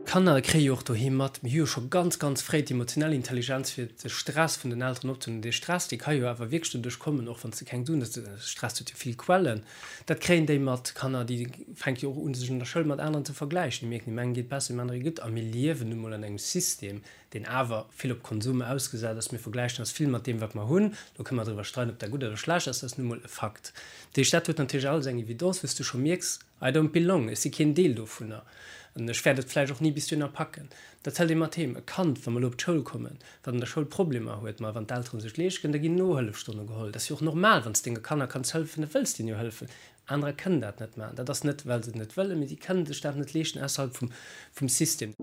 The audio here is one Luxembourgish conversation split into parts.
D'Kanner kréie jo och doheem mat, mir hu jo scho ganz, ganz fréi d'emotionell Intelligenz fir de Stress vun den Elteren opzehuelen. Dee Stress, dee ka jo awer wierklech doduerch kommen, och wann s de keng Suen hues, Stress huet jo vill Quellen, dat kréien déi mat. D'Kanner, déi fänke jo och un, sech an der Schoul mat aneren ze vergläichen. Déi mierken, deem engen geet besser, deem anere gutt. A mir liewen nu mol an engem System, deen awer vill op Konsum ausgesat ass. Mir vergläichen eis vill mat deem, wat mer hunn. Do kënne mer driwwer streiden, ob dat gutt oder schlecht ass, dat ass nu mol e Fakt. Dat heescht, dat huet natierlech alles eng Evidence, wou s du scho mierks, I don't belong, ech si keen Deel dovunner an ech wäert et vläicht och ni bis dohinner packen. Dat hëlt ee mat heem. E Kand, wa mer elo op d'Schoul kommen, wat an der Schoul Problemer huet, ma wann d'Eltere sech leescht kënnen, da ginn Nohëllefstonne geholl. Dat ass jo och normal, wann s denge Kanner kanns hëllefen, da wëlls de hinnen jo hëllefen. Anerer kënnen dat net maachen. Dat ass net, well se et net wëllen, mee si kënnen sech dat net leeschten ausserhalb vum, vum System.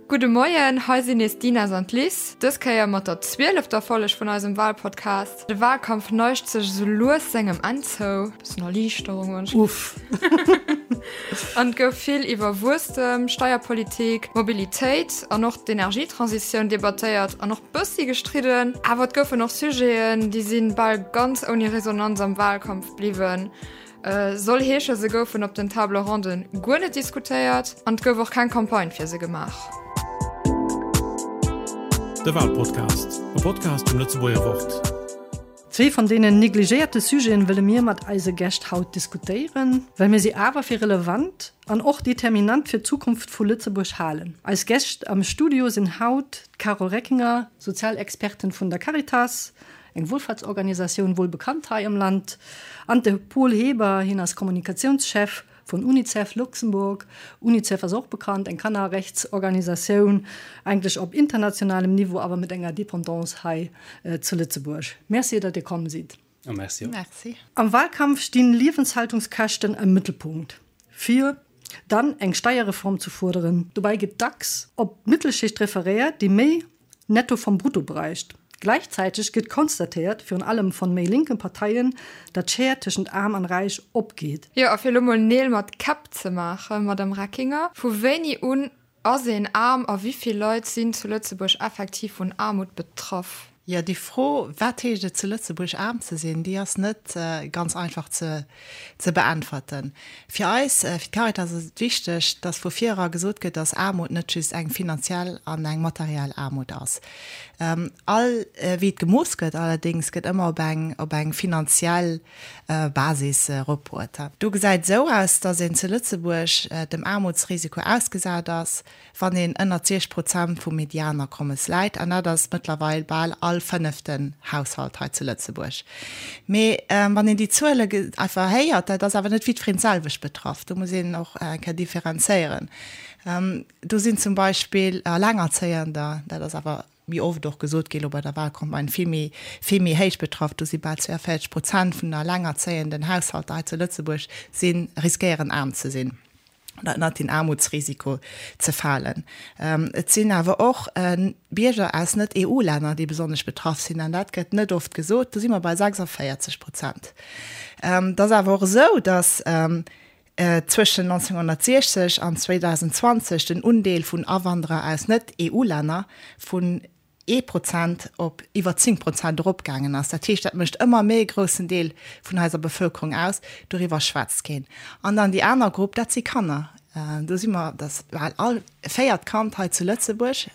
Gudde Moien, hei sinn nees d'Ines an d'Liz, dës Kéier mat der zwielefter Folleg vun eisem Walpodcast. De Walkampf neigt sech esou lues sengem Enn zou, bëssen Erliichterung wënsch. Uff. An et gouf vill iwwer Wuesstem, Steierpolitik, Mobilitéit an och d'Energietransitioun debattéiert an och bëssi gestridden. Awer et goufen och Sujeten, déi si bal ganz ouni Resonanz am Walkampf bliwwen. Soll heesche se goufen op den Table Ronden guer net diskutéiert an et gouf och keng Campagne fir se gemaach. De Walpodcast, e Podcast vum Lëtzebuerger Wort. Zwee van deenen negligéierte Sujeten wëlle mir mat eise Gäscht haut diskutéieren, well mir si awer fir relevant an och determinant fir d'Zukunft vu Lëtzebuerg halen. Eis Gäscht am Studio sinn haut d'Carole Reckinger, Sozialexpertin vun der Caritas, eng Wohlfahrtsorganisatioun, wuel bekannt hei am Land, an de Paul Heber, hien ass Kommunikatiounschef vun Unicef Luxembourg. Unicef ass och bekannt, eng Kannerrechtsorganisatioun, eigentlech op internationalem Niveau, awer mat enger Dependance hei zu Lëtzebuerg. Merci, datt Dir komm sidd. A merci och. Merci. Am Wahlkampf stinn Liewenshaltungskäschten am Mëttelpunkt. Fir dann eng Steierreform zu fuerderen. Dobäi gëtt dacks op d'Mittelschicht referéiert, déi méi Netto vom Brutto bräicht. Gläichzäiteg gëtt konstatéiert, virun allem von méi linken Parteien, datt d'Schär tëschent Aarm an Räich opgeet. Jo, a fir elo mol Neel mat Käpp ze maachen, Madame Reckinger, vu wéini un ass een aarm a wéi vill Leit sinn zu Lëtzebuerg effektiv vun Aarmut betraff? Jo, déi Fro, wat heescht et zu Lëtzebuerg aarm ze sinn, déi ass net ganz einfach ze ze beäntwerten. Fir eis, fir d'Caritas ass et wichteg, dass vu vir era gesot gëtt, dass Aarmut net just eng finanziell an eng materiell Aarmut ass. All, wéi et gemooss gëtt allerdéngs, gëtt ëmmer op eng, op eng finanziell Basis eropbruet. Do gesäit et esou aus, dass een zu Lëtzebuerg dem Aarmutsrisiko ausgesat ass, wann een ënnert 60 Prozent vum Medianakommes läit, an dat ass mëttlerweil bal all fënneften Haushalt hei zu Lëtzebuerg. Mee wann een déi Zuele einfach héiert, dat ass awer net jiddwereen d'selwecht betraff, do muss een och eng Kéier differenzéieren. Do sinn zum Beispill Alengerzéiender, dat ass awer méi oft och gesot gi lo bei der Wahlcampagne, vill méi, vill méi héich betraff. Do si bal 42 Prozent vun den alengerzéienden Haushalter hei zu Lëtzebuerg si riskéieren aarm ze sinn oder ënnert den Aarmutsrisiko ze falen. Et sinn awer och Bierger aus Net-EU-Länner, déi besonnesch betraff sinn, an dat gëtt net oft gesot, do si mer bei 46 Prozent. Et ass awer och esou, datt zwëschen 1960 an 2020 den Undeel vun Awanderer aus Net-EU-Länner vun ee Prozent op iwwer 10 Prozent eropgaangen ass. Dat heescht, dat mécht ëmmer méi e groussen Deel vun eiser Bevëlkerung aus. Doriwwer schwätzt keen. An dann déi aner Grupp, dat si Kanner. Do si mer, dass bal all véiert Kand hei zu Lëtzebuerg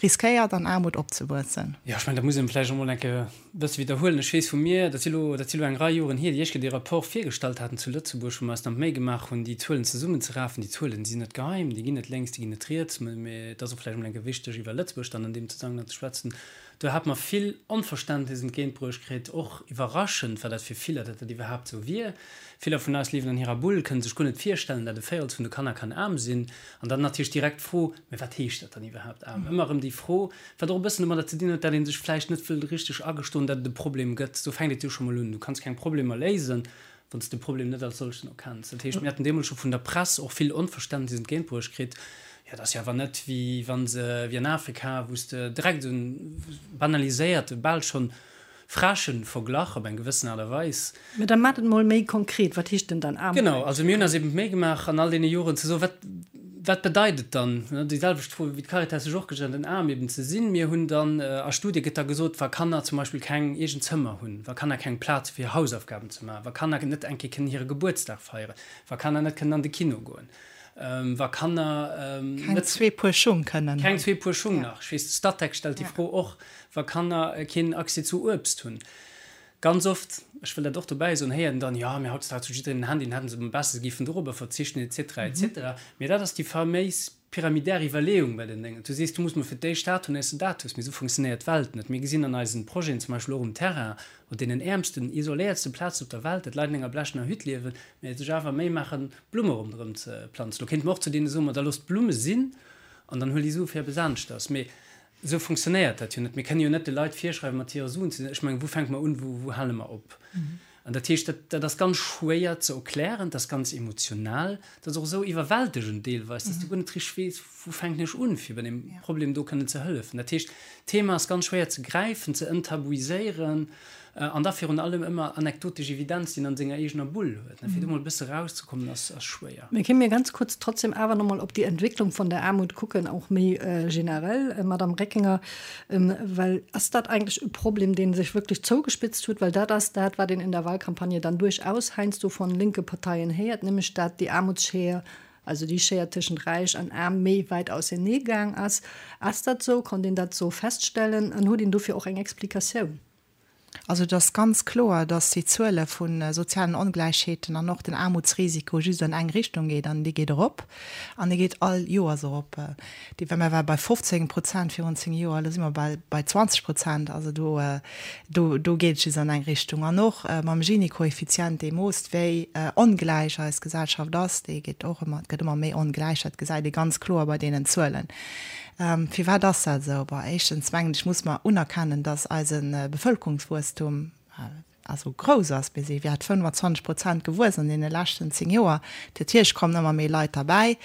riskéiert, an Aarmut opzewuessen. Jo, ech mengen, dat muss een vläicht och emol eng Kéier e bësse widderhuelen. Ech weess vu mir, dat si lo, dat si lo eng Rei Joren hier, déi ech dee Rapport virgestallt haten zu Lëtzebuerg, wou mer eis dann d'Méi gemaach hunn, déi Zuelen zesummenzerafen. Déi Zuelen si net geheim, déi ginn net lénks, déi ginn net riets, mä et ass och vläicht emol eng Kéier wichteg, iwwer Lëtzebuerg dann an deem Zesammenhang ze schwätzen. Do hate mer vill Onverständnis entgéintbruecht kritt, och iwwerraschend war dat fir viller, datt dat iwwerhaapt esou wier. Viller vun eis liewen an hirer Bull, kënne sech guer net virstellen, datt e Véirels vun de Kanner kann aarm sinn. An dann natierlech direkt d'Fro, Mä wat heescht dat dann iwwerhaapt aarm? Ëmmer erëm déi Fro, wat och e bëssen domadder ze dinn huet, datt ee sech vläicht net wëll richteg agestoen, datt et e Problem gëtt. Do fänkt et jo scho mol un. Du kanns keng Problemer léisen, wann s de Problem net als solchen erkenns. Dat heescht, mir haten deemools scho vun der Press och vill Onverständnis entgéintbruecht kritt, Jo, dat ass jo awer net wéi wa se, wéi an Afrika, wou s de direkt esou en banaliséierte, bal schonn frechen Verglach op eng gewëssen Aart a Weis. Mä da maacht et mol méi konkret, Wat heescht denn dann Aarmut? Genau, also mir hunn eis eben d'Méi gemaach an all deene Joren ze soen, wat. Wat bedeit et dann, déi selwecht Fro wéi d'Caritas sech och gestallt huet, aarm eben ze sinn? Mir hunn dann, a Studie gëtt da gesot, wa Kanner zum Beispill keng eegen Zëmmer hunn, wa Kanner keng Plaz hu fir hir Hausaufgaben ze maachen, wa Kanner net eng Kéier kënnen hire Gebuertsdag feieren, wa Kanner net kënnen an de Kino goen, wa Kanner net. Keng zwee Puer Schung kënnen hunn. Keng zwee Puer Schung nach. Ech weess, de Statec stellt déi Fro och, wa Kanner keen Accès zu Uebst hunn. Ganz oft, ech wëll dat och dobäi soen, héiert een dann, jo, mee hautdesdaags huet jiddereen en Handy, dann hätten se am beste, se géifen dorobber verzichten, et cetera, et cetera. Mee dat ass déi faméis pyramidär Iwwerleeung bei den Déngen. Du sees, du muss mol fir d'éischt dat hunn, éiers de dat hues. Mee esou funktionéiert d'Welt net. Mir gesinn an eisen Projeten, zum Beispill och um Terrain, op deenen äermsten, isoléiertste Plazen op der Welt, datt Leit an enger blechener Hütt liewen, mee sech awer Méi maachen, Blumme ronderëm ze planzen. Lo kéinte mer och zu deene soen, ma da loosst d'Blumme sinn an dann huel déi Sue fir eppes aneschters. Mee Esou funktionéiert dat jo net. Mir kënne jo net de Leit virschreiwen, mat hire Suen ze sinn. Ech mengen, wou fänke mer un, wou, wou hale mer op? An dat heescht, dat, dat ass ganz schwéier ze erklären, dat ass ganz emotional, dat ass och esou iwwerwältegend deelweis, dass du guer net richteg weess, wou fänken ech un, fir bei deem Problem do kënnen ze hëllefen. Dat heescht, d'Thema ass ganz schwéier ze gräifen, ze enttabuiséieren an da virun allem ëmmer anekdotesch Evidenz, déi een an senger eegener Bull huet. Fir do mol e bësse erauszekommen, ass, ass schwéier. Mee kéint mir ganz kurz trotzdem awer nach mol op déi Entwécklung von der Aarmut kucken, och méi generell, Madame Reckinger, well ass dat eigentlech e Problem, dee sech wierklech zougespitzt huet? Well dat ass dat, wat een in der Wahlkampagne dann duerchaus heiansdo von linke Parteien héiert, nämlech dat déi Aarmutsschéier, also déi Schéier tëschent Räich an Aarm méi wäit ausernee gaang ass. Ass dat esou? Konnt een dat esou feststellen an huet een dofir och eng Explikatioun? Also et ass ganz kloer, datt déi Zuele vu sozialen Ongläichheeten an och den Aarmutsrisiko just an eng Richtung geet, an dee geet erop. An dee geet all Joers erop. Déi, well mer ware bei 15 Prozent virun 10 Joer, elo si mer bal bei 20 Prozent. Also do, do, do geet et just an eng Richtung. An och mam Gini-Koeffizient, dee moosst, wéi ongläich eis Gesellschaft ass, dee geet och ëmmer, et gëtt ëmmer méi ongläich. Dat gesäit ee ganz kloer bei deenen Zuelen. Firwat ass dat esou? Bon, éischtens mengen ech, muss mer unerkennen, dass eise Bevëlkerungswuesstum also grouss ass. Mir si wäert 25 Prozent gewuess an deene leschten 10 Joer. Natierlech kommen ëmmer méi Leit derbäi.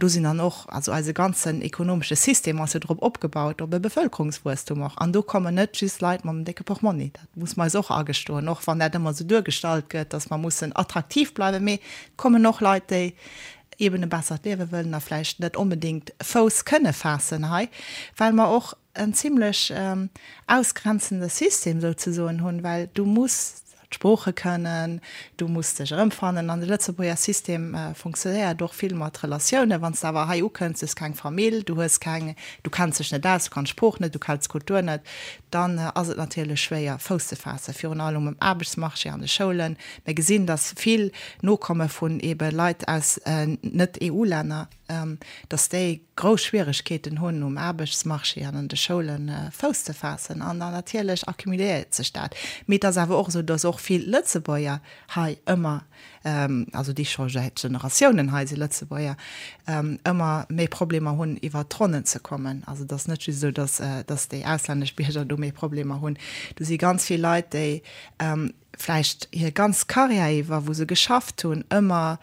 Do sinn dann och, also eise ganzen ekonomesche System ass jo drop opgebaut, op e Bevëlkerungswuesstum och. An do kommen net just Leit mam décke Portmonni. Dat muss mer eis och agestoen, och wann dat ëmmer esou duergestallt gëtt, dass mer mussen attraktiv bleiwen. Mee et kommen och Leit, déi eben e bessert Liewe wëllen a vläicht net onbedéngt Fouss kënne faassen hei, well mer och en zimlech ausgrenzende System souzesoen hunn, well du muss d'Sprooche kënnen, du muss dech erëmfannen an de Lëtzebuerger System funktionéiert och vill mat Relatiounen. Wann s de awer hei ukënns, du hues keng Famill, du hues keng, du kenns dech net aus, du kanns d'Sprooch net, du kenns d'Kultur net, dann ass et natierlech schwéier Fouss ze faassen, virun allem um Aarbechtsmarché, an de Schoulen. Mir gesinn, dass vill Nokomme vun ebe Leit aus Net-EU-Länner, dass déi grouss Schwieregkeeten hunn, um Aarbechtsmarché an an de Schoule Fouss ze faassen. An dann natierlech accumuléiert sech dat. Mee et ass awer och esou, dass och vill Lëtzebuerger hei ëmmer, also déi scho säit Generatiounen hei si Lëtzebuerger, ëmmer méi Problemer hunn, iwwert d'Ronnen ze kommen. Also et ass net just esou, dass, dass déi auslännesch Bierger do méi Problemer hunn. Do si ganz vill Leit, déi vläicht hir ganz Karriär iwwer, wou se geschafft hunn, ëmmer,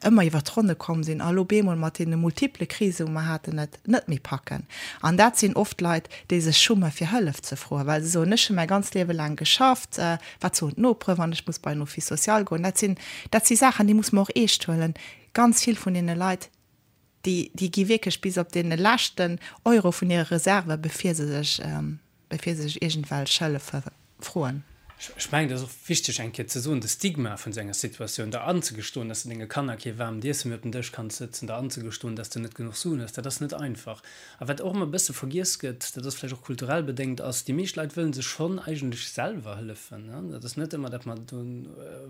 ëmmer iwwer d'Ronne komm sinn a lo bemol mat deene multiple Krise wou mer haten, et net méi packen. An dat sinn oft Leit, déi sech schumme fir Hëllef ze froen, well se soen, ech hu mäi ganzt Liewe laang geschafft, wat soen d'Nopere wann ech muss bei en Office social goen? Dat sinn, dat si Saachen, déi muss mer och eescht huelen. Ganz vill vun deene Leit, déi, déi gi wierklech bis op dee leschten Euro vun hire Reserve bevir se sech, bevir se sech iergendwelch Hëllefe froen. Ech mengen, et ass och wichteg eng Kéier ze soen, de Stigma vun esou enger Situatioun, der anzegestoen, dass de denge Kanner kee waarmt Iesse méi op den Dësch kanns sëtzen, der anzegestoen, dass de net genuch Suen hues, dat ass net einfach. A wat och ëmmer e bësse vergiess gëtt, dat ass vläicht och kulturell bedéngt, ass, déi meescht Leit wëlle sech schonn eigentlech selwer hëllefen. Dat ass net ëmmer, datt mer do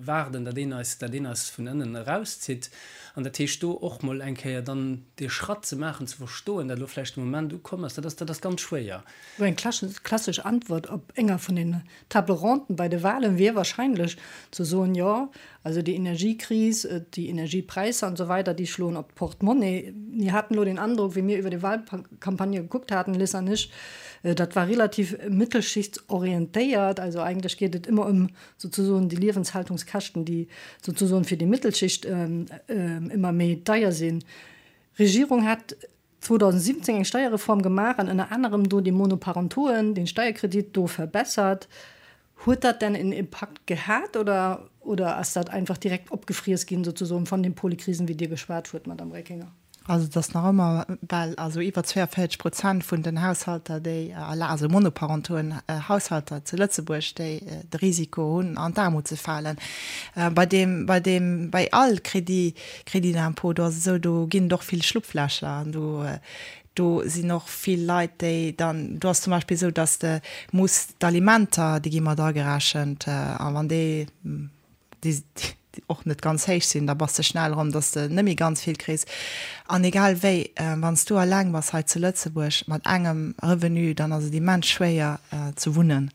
waarden, datt een eis, datt een eis vun ënnen erauszitt. An dat heescht, do och mol eng Kéier dann dee Schratt ze maachen, ze verstoen, datt elo vläicht de Moment ukomm ass, dat ass, dat ass ganz schwéier. Sou eng klassesch Antwort op enger vun den Table ronden bei de Wahlen wier wahrscheinlech ze soen, jo, also déi Energiekris, déi Energiepräisser an esou weider, déi schloen op d'Portemonnaie. Mir haten elo den Androck, wéi mir iwwer déi Wahlcampagne gekuckt haten, Liz an ech, dat war relativ mittelschichtsorientéiert. Also eigentlech geet et ëmmer ëm souzesoen déi Liewenshaltungskäschten, déi souzesoen fir déi Mittelschicht ëmmer méi deier sinn. D'Regierung hat 2017 eng Steierreform gemaach an ënner anerem do déi Monoparentoen, den Steierkredit do verbessert. Huet dat denn en Impakt gehat oder oder ass dat einfach direkt opgefriess ginn sozesoen von den Polykrisen, wéi Dir geschwat huet, Madame Reckinger? Also et ass nach ëmmer bal, also iwwer 42 Prozent vun den Haushalter, déi, also monoparentoen Haushalter zu Lëtzebuerg, déi de Risiko hunn an d'Aarmut ze falen. Bei deem, bei deem, bei all Crédit, Crédit d'impôt, do ass et esou, do ginn et och vill Schlupflächer an do, do sinn och vill Leit, déi dann, do ass zum Beispill esou, datt de muss d'Alimenter, déi gi mat agerechent a wann déi, déi och net ganz héich sinn, da bass de schnell erëm, dass de net méi ganz vill kriss. An egal wéi, wann s du alleng bass hei zu Lëtzebuerg mat engem Revenu, dann ass et immens schwéier ze wunnen.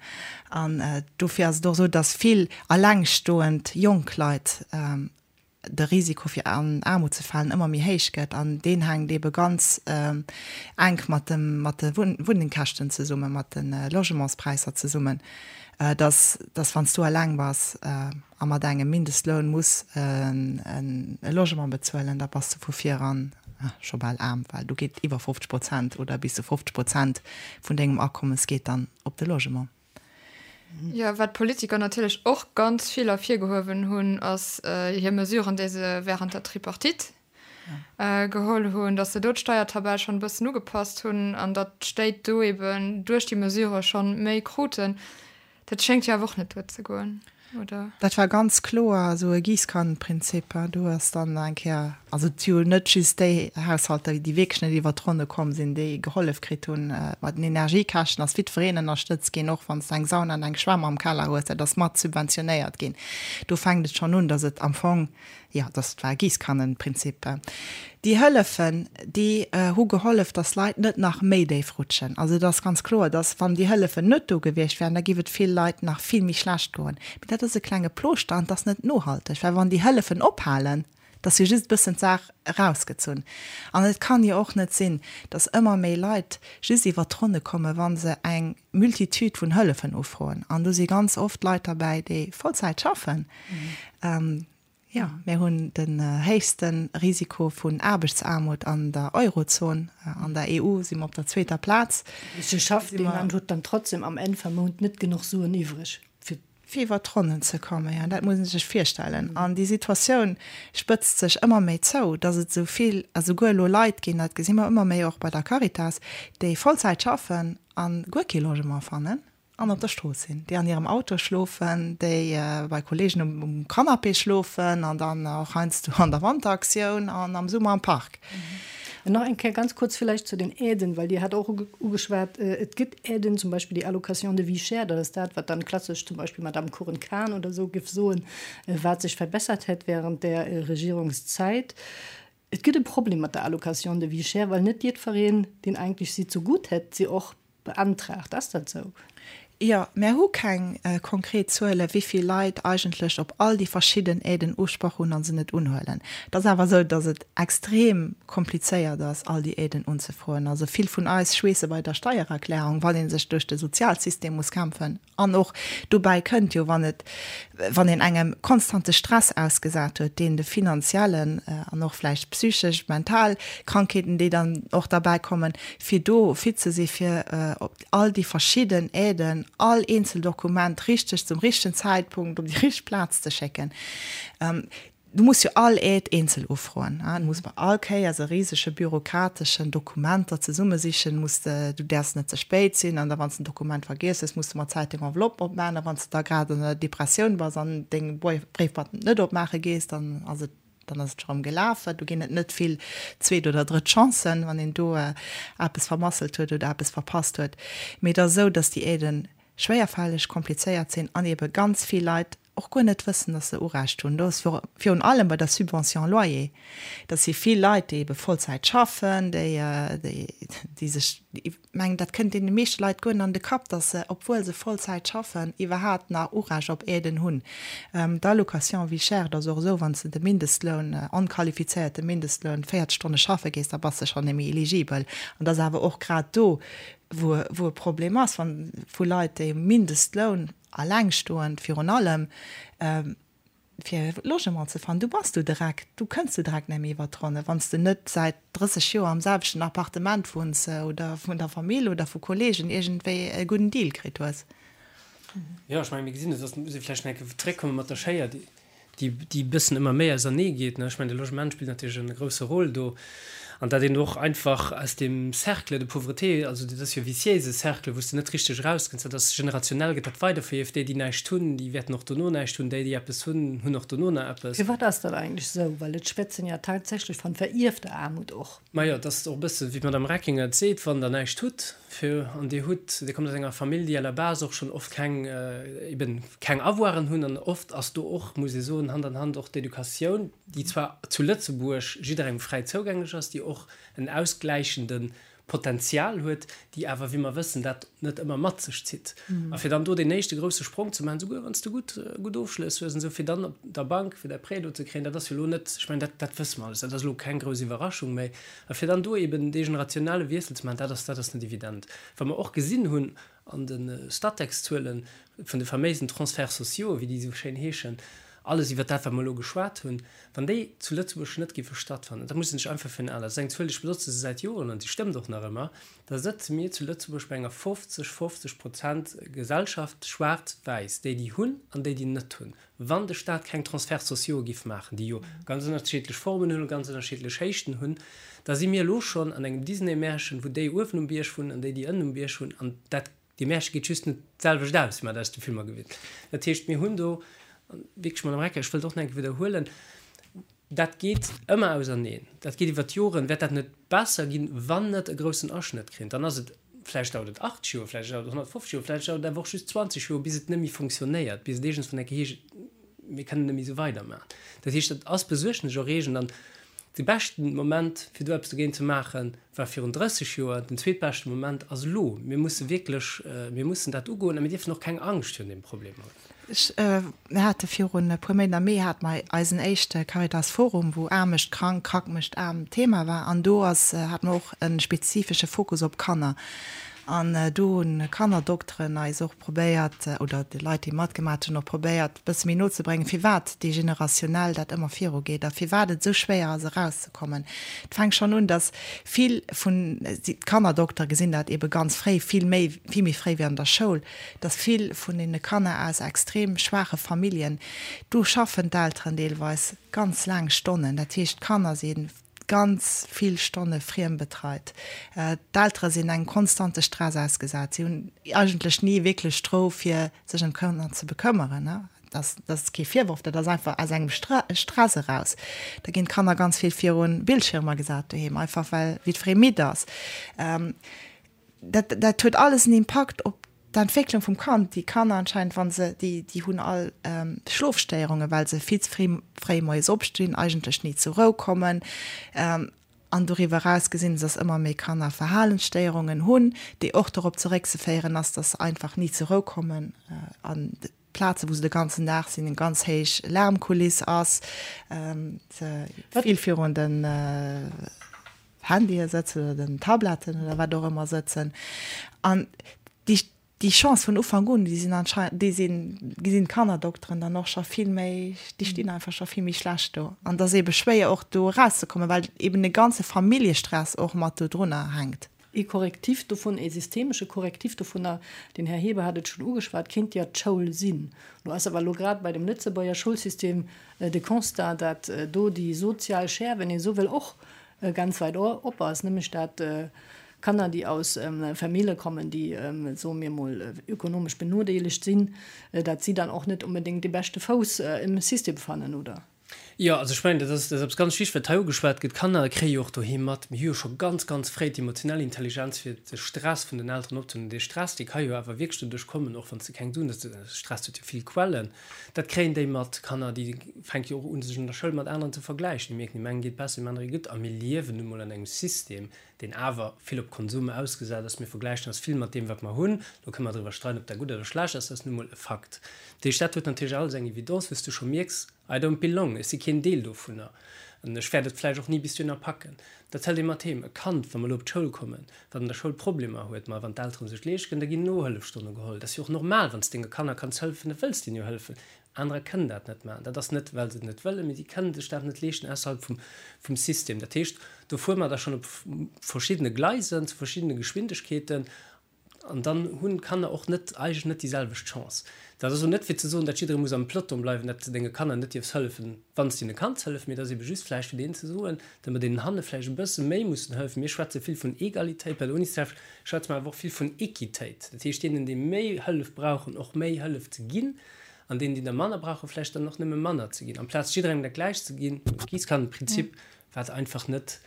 An dofir ass et och esou, dass vill allengstoend jonk Leit de Risiko fir an Aarmut ze falen ëmmer méi héich gëtt. An deen hänkt eebe ganz enk mat dem, mat de Wunnengkäschten zesummen, mat de Logementspräisser zesummen. Dass, dass wann s du eleng bass a mat engem Mindestloun muss e Logement bezuelen, da bass de vu viran scho bal aarm, well do geet iwwer 50 Prozent oder bis zu 50 Prozent vun dengem Akommes geet dann op de Logement. Jo, wat d'Politiker natierlech och ganz vill ervirgehuewen hunn, ass hir Mesuren, déi se während der Tripartite geholl hunn, datt se do d'Steiertabell schonn e bëssen ugepasst hunn an datt d'Stéit do eben duerch déi Mesure schonn méi kruten. Dat schéngt jo awer och net duerzegoen, oder? Dat war ganz kloer esou e Giesskannenprinzip. Do ass dann eng Kéier, also et si jo net just déi Haushalter, déi wierklech net iwwert d'Ronne komm sinn, déi gehollef kritt hunn. Bei den Energiekäschten ass jiddwereen ënnerstëtzt ginn, och wann s de eng Sauna an eng Schwämm am Keller hues, dat ass mat subventionéiert ginn. Do fänkt et schonn un, datt et am Fong Jo, dass war Giesskannenprinzip. Déi Hëllefen, déi hu gehollef, dass Leit net nach méi déif rutschen. Also et ass ganz kloer, dass wann déi Hëllefen net do gewiescht wären, da géif et vill Leit nach vill méi schlecht goen. Mee dat ass e klenge Plooschter an et ass net nohalteg, well wann déi Hëllefen ophalen, da ass jo just e bëssen d'Saach erausgezunn. An et kann jo och net sinn, dass ëmmer méi Leit just iwwert d'Ronne kommen, wa se eng Multitude vun Hëllefen ufroen. An do si ganz oft Leit derbäi, déi Vollzäit schaffen. Jo, mir hunn den héchste Risiko vun Aarbechtsaarmut an der Eurozon. An der EU si mer op der zweeter Plaz. Se schafft deen an huet dann trotzdem am Enn vam Mount net genuch Suen iwwreg fir. Fir iwwer d'Ronnen ze kommen. Jo, dat muss ee sech virstellen. An déi Situatioun spëtzt sech ëmmer méi zou, datt et esou vill, a souguer elo Leit ginn, dat gesi mer ëmmer méi och bei der Caritas, déi Vollzäit schaffen a guer kee Logement fannen. An op der Strooss sinn, déi an hirem Auto schlofen, déi bei Kollegen um Canapé schlofen an dann och heiansdo an der Wanteraktioun an am Summer am Park. An nach eng Kéier ganz kuerz villäicht zu den Aiden, well Dir hat och ugeschwat, et gëtt Aiden, zum Beispill déi Allocation de vie chère, dat ass dat, wat dann klassesch zum Beispill Madamm Cohen-Kahn oder esou géif soen, wat sech verbessert hätt während där Regierungszäit. Et gëtt e Problem mat der Allocation de vie chère, well net jiddwereen, deen eigentlech si zegutt hätt, se och beantragt. Ass dat esou? Jo, mär hu keng konkret Zuele wéi vill Leit eigentlech op all déi verschidden Aiden Usproch hunn a se net unhuelen. Et ass awer esou, datt et extrem komplizéiert ass, all déi Aiden unzefroen. Also vill vun eis schweesse bei der Steiererklärung, wann ee sech duerch de Sozialsystem muss kämpfen. An och dobäi kënnt jo, wann et, wann een engem konstante Stress ausgesat huet, deen de finanziellen an och vläicht psychesch, mental Krankheeten, déi dann och derbäi kommen, fir do fit ze si fir op all déi verschidden Aiden, all eenzel Dokument richteg zum richtegen Zäitpunkt op déi richteg Plaz ze schécken. Du muss jo all Aide eenzel ufroen. Du muss bei all Kéiers e risege bürokrateschen Dokumenter zesummesichen. Muss de, du däerfs net ze spéit sinn an da wann s de en Dokument vergiess hues, muss de mat Zäit deng Enveloppe opmaachen. A wann s de da grad an der Depressioun bass an deng Bréifboîte net opmaache gees, dann ass et, dann ass et scho rëm gelaf. Do ginn et net vill zweet oder drëtt Chancen, wann een do eppes vermasselt huet oder eppes verpasst huet. Mee et ass esou, dass déi Aiden schwéierfälleg, komplizéiert sinn an ebe ganz vill Leit och guer net wëssen, dass se Urecht hunn. Do ass virun allem bei der Subvention loyer, dat si vill Leit, déi ebe Vollzäit schaffen, déi, déi sech, ech mengen, dat kënnt deene meeschte Leit guer net an de Kapp, dass se, obwuel se Vollzäit schaffen, iwwerhaapt nach Urecht op Aiden hunn. D'Allocation vie chère, dat ass och esou, wann s de de Mindestloun, onqualifizéierte Mindestloun, 40 Stonne schaffe gees, da bass de schonn net méi eligibel. An dat ass awer och grad do, wou e Problem ass, wann vu Leit, déi um Mindestloun, Allengstoend virun allem, fir e Logement ze fannen. Du bass du direkt, du kënns du direkt net méi iwwer d'Ronne, wann s de net säit 30 Joer am selwechten Appartement wunns oder vun der Famill oder vu Kollegen iergendwéi e gudden Deal kritt hues. Jo, ech mengen, mir gesinn et, dass muss ee vläicht nach eng Kéier zréckkomme mat der Schéier, déi déi e bëssen ëmmer méi ausernee geet. Ech mengen, de Logement spillt natierlech e grousse Rôle do. An datt een och einfach aus deem Cercle de pauvreté, also dat ass jo e viciéise Cercle, wou s de net richteg erauskënns, dat ass generationell gëtt dat weiderverierft, déi, déi näischt hunn, déi wäerten och dono näischt hunn, déi, déi eppes hunn, hunn och dono nach eppes. Firwat ass dat eigentlech esou? Well et schwätzen ja tatsächlech van verierfter Aarmut och. Majo, et ass och e bësse wéi d'Madame Reckinger et seet, wann Der näischt hutt, fir, an Dir hutt, Dir kommt aus enger Famill, déi à la base och schonn oft keng, eben keng Avoiren hunn, an oft ass do och, muss ee soen, Hand an Hand och d'Educatioun, déi zwar zu Lëtzebuerg jidderengem fräi zougänglech ass, déi och en ausgläichende Potenzial huet, déi awer, wéi mer wëssen, dat net ëmmer mat sech zitt. A fir dann do deen éischte grouse Sprong ze maachen, souguer wann s de gutt, gutt Ofschlëss hues an esou, fir dann op der Bank fir däi Prêt do ze kréien, dat ass jo elo net, ech mengen, dat, dat wësse mer alles, dat ass elo keng grouss Iwwerraschung méi. A fir dann do eben dee generationelle Wiessel ze maachen, dat ass, dat ass net evident. Wa mer och gesinn hunn an de Statec-Zuelen vun de faméisen Transferts sociaux, wéi déi esou schéin heeschen, alles iwwert dat, wat mer elo geschwat hunn, wann déi zu Lëtzebuerg net géife stattfannen, da muss een sech einfach virun Aen, dat ass eng Zuel, ech benotze se säit Joren an déi stëmmt och nach ëmmer, da sëtze mir zu Lëtzebuerg bei enger 50, 50 Prozent Gesellschaft, schwaarz-wäiss, déi déi hunn an déi déi net hunn. Wann de Staat keng Transferts sociaux giff maachen, déi jo ganz ënnerschiddlech Formen hunn a ganz ënnerschiddlech Héichten hunn, da si mir elo schonn an engem Disney-Märchen, wou déi uewen um Bierg wunnen an déi, déi ënnen um Bierg wunnen. An dat, dee Märche geet just net d'selwecht aus, wéi mer dat aus de Filmer gewinnt. Dat heescht, mir hunn do wierklech, Madame Recker, ech wëllt och nach eng Kéier widderhuelen, dat geet ëmmer auserneen, dat geet iwwer d'Joren, wäert dat net besser ginn, wann net e groussen Aschnëtt kréien, dann ass et, vläicht dauert et 80 Joer, vläicht dauert et 150 Joer, vläicht dauert et awer och just 20 Joer, bis et net méi fonctionnéiert, bis et iergendswann eng Kéier heescht, mir kënnen net méi esou weidermaachen. Dat heescht, dat ass besuergneserreegend an de beschten Moment, fir do eppes dogéint ze maachen, war virun 30 Joer, den zweetbeschte Moment ass elo. Mir musse wierklech, mir mussen dat ugoen a mir dierfen och keng Angscht virun deem Problem hunn. Ech, mir hate virun e puer Méint, am Mee hate mer eisen éischte Caritas Forum, wou Aarm mécht krank, krank mécht aarm Thema war. An do ass, hate mer och e spezifesche Fokus op Kanner. An do hu Kannerdokteren eis och probéiert, oder déi Leit, déi matgemat hunn, och probéiert, e bësse méi no ze bréngen, firwat déi generationell dat ëmmer virugeet a firwat et esou schwéier ass, erauszekommen. Et fänkt schonn un, datt vill vun, d'Kannerdoktere gesinn dat eebe ganz fréi, vill méi, vill méi fréi wéi an der Schoul, datt vill vun deene Kanner aus extrem schwaache Familljen, do schaffen d'Elteren deelweis ganz laang Stonnen, dat heescht d'Kanner si ganz vill Stonne friembetreit, d'Eltere sinn engem konstante Stress ausgesat, si hunn eigentlech ni wierklech d'Rou fir sech ëm d'Kanner ze bekëmmeren. Dat ass kee Virworf, dat ass einfach aus engem Stress eraus. Da ginn d'Kanner ganz vill virun Bildschirmer gesat doheem, einfach well jiddweree midd ass. Dat, dat huet alles en Impakt op d'Entwécklung vum Kand. Déi Kanner anscheinend, wa se, déi, déi hunn all Schlofstéierungen, well se vill ze fréi, fréi moies opstinn, eigentlech ni zur Rou kommen. An doriwwer eraus gesinn se, dass ëmmer méi Kanner Verhalensstéierungen hunn, déi och dorop zeréckzeféieren ass, dass se einfach ni zur Rou kommen an Plaze wou se de ganzen Dag sinn, eng ganz héich Lärmkuliss ass, se vill virun den Handye sëtzen oder den Tabletten oder wat och ëmmer sëtzen. An déi, déi Chance vun Ufank un, déi sinn anscheinend, déi sinn, gesinn d'Kannerdokteren dann och scho vill méi, déi stinn einfach scho vill méi schlecht do. An et ass eebe schwéier och do erauszekommen, well eeben e ganze Familljestress och mat do drunner hänkt. Ee Korrektiv dovun, ee systemesche Korrektiv dovunner, den Här Heber hat et schonn ugeschwat, kéint jo d'Schoul sinn. Lo ass awer elo grad bei dem Lëtzebuerger Schoulsystem de Constat, dat do déi sozial Schere, wenn ee esou wëll, och ganz weit op ass, nämlech dat Kanner, déi aus Famille kommen, déi, soe mir emol, ökonomesch benodeelegt sinn, dat si dann och net onbedéngt dee beschte Fouss im System fannen, oder? Jo, also ech mengen, dat ass, dat ass eppes ganz Wichtiges, wat hei ugeschwat gëtt. D'Kanner kréie jo och doheem mat, mir hu jo scho ganz, ganz fréi d'emotionell Intelligenz, fir de Stress vun den Elteren opzehuelen. Dee Stress, dee ka jo awer wierklech doduerch kommen, och wann s de keng Suen hues, de Stress huet jo vill Quellen, dat kréien déi mat. D'Kanner, déi fänke jo och un, sech an der Schoul mat aneren ze vergläichen. Déi mierken, deem engen geet besser, deem anere gutt. A mir liewen nu mol an engem System, deen awer vill op Konsum ausgesat ass. Mir vergläichen eis vill mat deem, wat mer hunn. Do kënne mer driwwer streiden, ob dat gutt oder schlecht ass, dat ass nu mol e Fakt. Dat heescht, dat huet natierlech alles eng Evidence, wou s du scho mierks, I don't belong, ech si keen Deel dovunner an ech wäert et vläicht och ni bis dohinner packen. Dat hëlt ee mat heem. E Kand, wa mer elo op d'Schoul kommen, wat an der Schoul Problemer huet, ma wann d'Eltere sech leescht kënnen, da ginn Nohëllefstonne geholl. Dat ass jo och normal, wann s denge Kanner kanns hëllefen, da wëlls deenen jo hëllefen. Anerer kënnen dat net maachen. Dat ass net, well se et net wëllen, mee si kënnen sech dat net leeschten ausserhalb vum, vum System. Dat heescht, do fuere mer da schonn op verschiddene Gleisen, zu verschiddene Geschwindegkeeten. An dann hunn d'Kanner och net, eigentlech net déi selwecht Chance. Dat ass elo net fir ze soen, datt jidderee muss am Peloton bleiwen, datt s de denge Kanner net dierfs hëllefen, wann s de hinne kanns hëllefen, mee et ass ebe just vläicht fir deenen ze soen, datt mer deenen hanne vläicht e bësse méi mussen hëllefen. Mir schwätze vill vun Egalitéit, bei der Unicef schwätze mer awer och vill vun Equitéit, dat heescht deenen, déi méi Hëllef brauchen, och méi Hëllef ze ginn an deenen, déi der manner brauchen, vläicht dann och nëmme manner ze ginn, amplaz jidderengem dat Gläicht ze ginn, Giesskannenprinzip, wat einfach net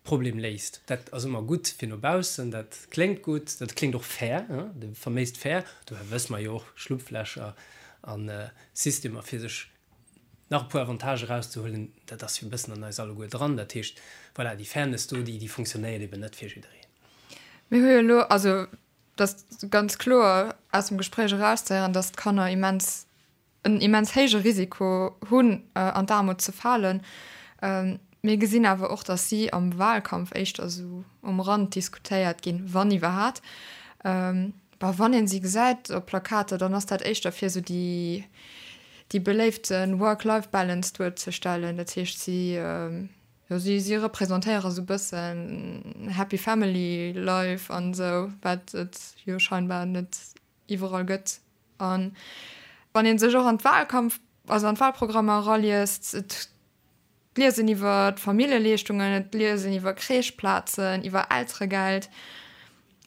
Problem léist. Dat ass ëmmer gutt fir no baussen, dat kléngt gutt, dat kléngt och fair, de faméist fair. Dobäi wësse mer jo och, Schlupflächer a Systemer fir sech nach e puer Avantage erauszehuelen, dat ass jo e bëssen an eis alleguer dran. Dat heescht, voilà, déi Fairness do, déi funktionéiert eben net fir jiddereen. Mir hu jo elo, also et ass ganz kloer aus dem Gespréich erauszehéieren, datt d'Kanner immens en immens héije Risiko hunn, an d'Aarmut ze falen. Mir gesinn awer och, datt si am Wahlkampf éischter esou um Rand diskutéiert ginn, wann iwwerhat. Bah, wann ee si gesäit op Plakater, dann ass dat éischter fir esou déi, déi beléifte Work-Life-Balance duerzestellen. Dat heescht, si, jo, si, si representéiere sou e bëssen Happy Family Life an esou, wat et jo scheinbar net iwwerall gëtt. An wann ee sech och an d'Wahlkampf, also an d'Wahlprogrammer eraliest, et liest een iwwer d'Familljeleeschtungen, et liest een iwwer Crècheplazen, iwwer Elteregeld,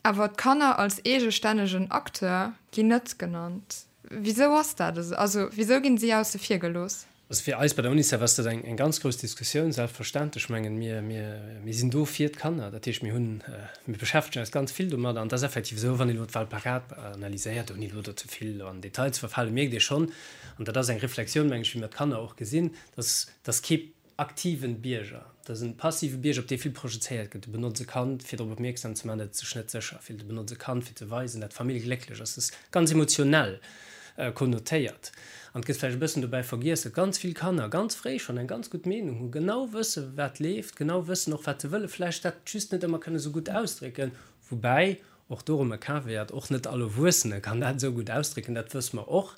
awer d'Kanner als eegestännegen Acteur ginn net genannt. Wisou ass dat esou? Also wisou ginn si ausse vir gelooss? Also fir eis bei der Unicef ass dat eng eng ganz grouss Diskussioun, selbstverständlech. Ech mengen, mir, mir, mir sinn do fir d'Kanner. Dat heescht, mir hunn, mir beschäftegen eis ganz vill domadder. An et ass effektiv esou, wann een elo d'Wahlplakat analyséiert, ouni elo do ze vill an Detail ze verfalen, mierkt ee schonn, an dat ass eng Reflexioun, meng ech, wéi mir d'Kanner och gesinn, dass, dass kee aktiven Bierger, dat ass en passive Bierger, op dee vill projezéiert gëtt. Du benotz e Kand, fir drop opmierksam ze maachen, datt et sech net sécher fillt. Du benotz e Kand, fir ze weisen, datt d'Famill glécklech ass. Dat ass ganz emotionell konnotéiert. An et gëtt vläicht e bëssen dobäi vergiess, datt ganz vill Kanner ganz fréi schonn eng ganz gutt Meenung hunn, genau wësse wat leeft, genau wëssen och wat se wëllen, vläicht dat just net ëmmer kënne sou gutt ausdrécken. Woubäi Och do erëm e Caveat, Och net all Erwuessene kann dat esou gutt ausdrécken, dat wësse mer och.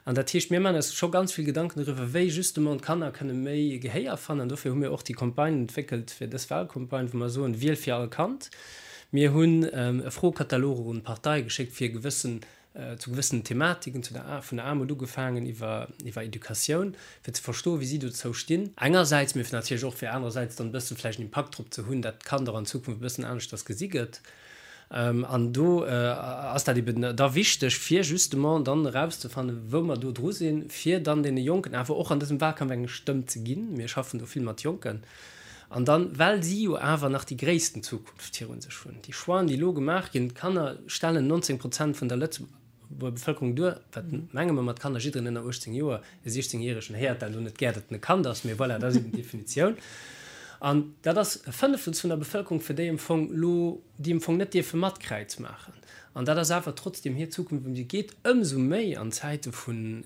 An dat heescht, mir maachen eis scho ganz vill Gedanken doriwwer, wéi justement d'Kanner kënne méi Gehéier fannen. An dofir hu mir och déi Campagne entwéckelt fir dës Wahlcampagne, wou mer soen, Wiel fir all Kand. Mir hunn e Froekatalog och un d'Parteie geschéckt, fir gewëssen, zu gewëssenen Thematiken, zu der, vun der Aarmut ugefaangen iwwer, iwwer Educatioun, fir ze verstoen, wéi si dozou stinn. Engersäits, mee natierlech och fir anerersäits dann e bësse vläicht en Impakt drop ze hunn, dat d'Kand och an Zukunft e bëssen aneschters gesi gëtt. An do ass dat eben da wichteg, fir justement dann erauszefannen, wou mer do dru sinn, fir dann deene Jonken awer och an dësem Wahlkampf eng Stëmm ze ginn. Mir schaffen do vill mat Jonken. An dann, well si jo awer nach déi gréissten Zukunft virun sech hunn, déi Choixen, déi elo gemaach ginn, d'Kanner stellen 19 Prozent vun der Lëtzebuerger Bevëlkerung duer, wat menge mer mat Kanner, jidderen ënner 18 Joer, e 16 Järegen héiert dat elo net gär, datt en e Kand ass, mee voilà, dat ass eben d'Definitioun. An dat ass e Fënnefels vun der Bevëlkerung, fir déi am Fong elo, déi am Fong net dierfe mat Kräiz maachen. An dat ass awer trotzdeem hir Zukunft, ëm déi et geet, ëmsou méi an Zäite vun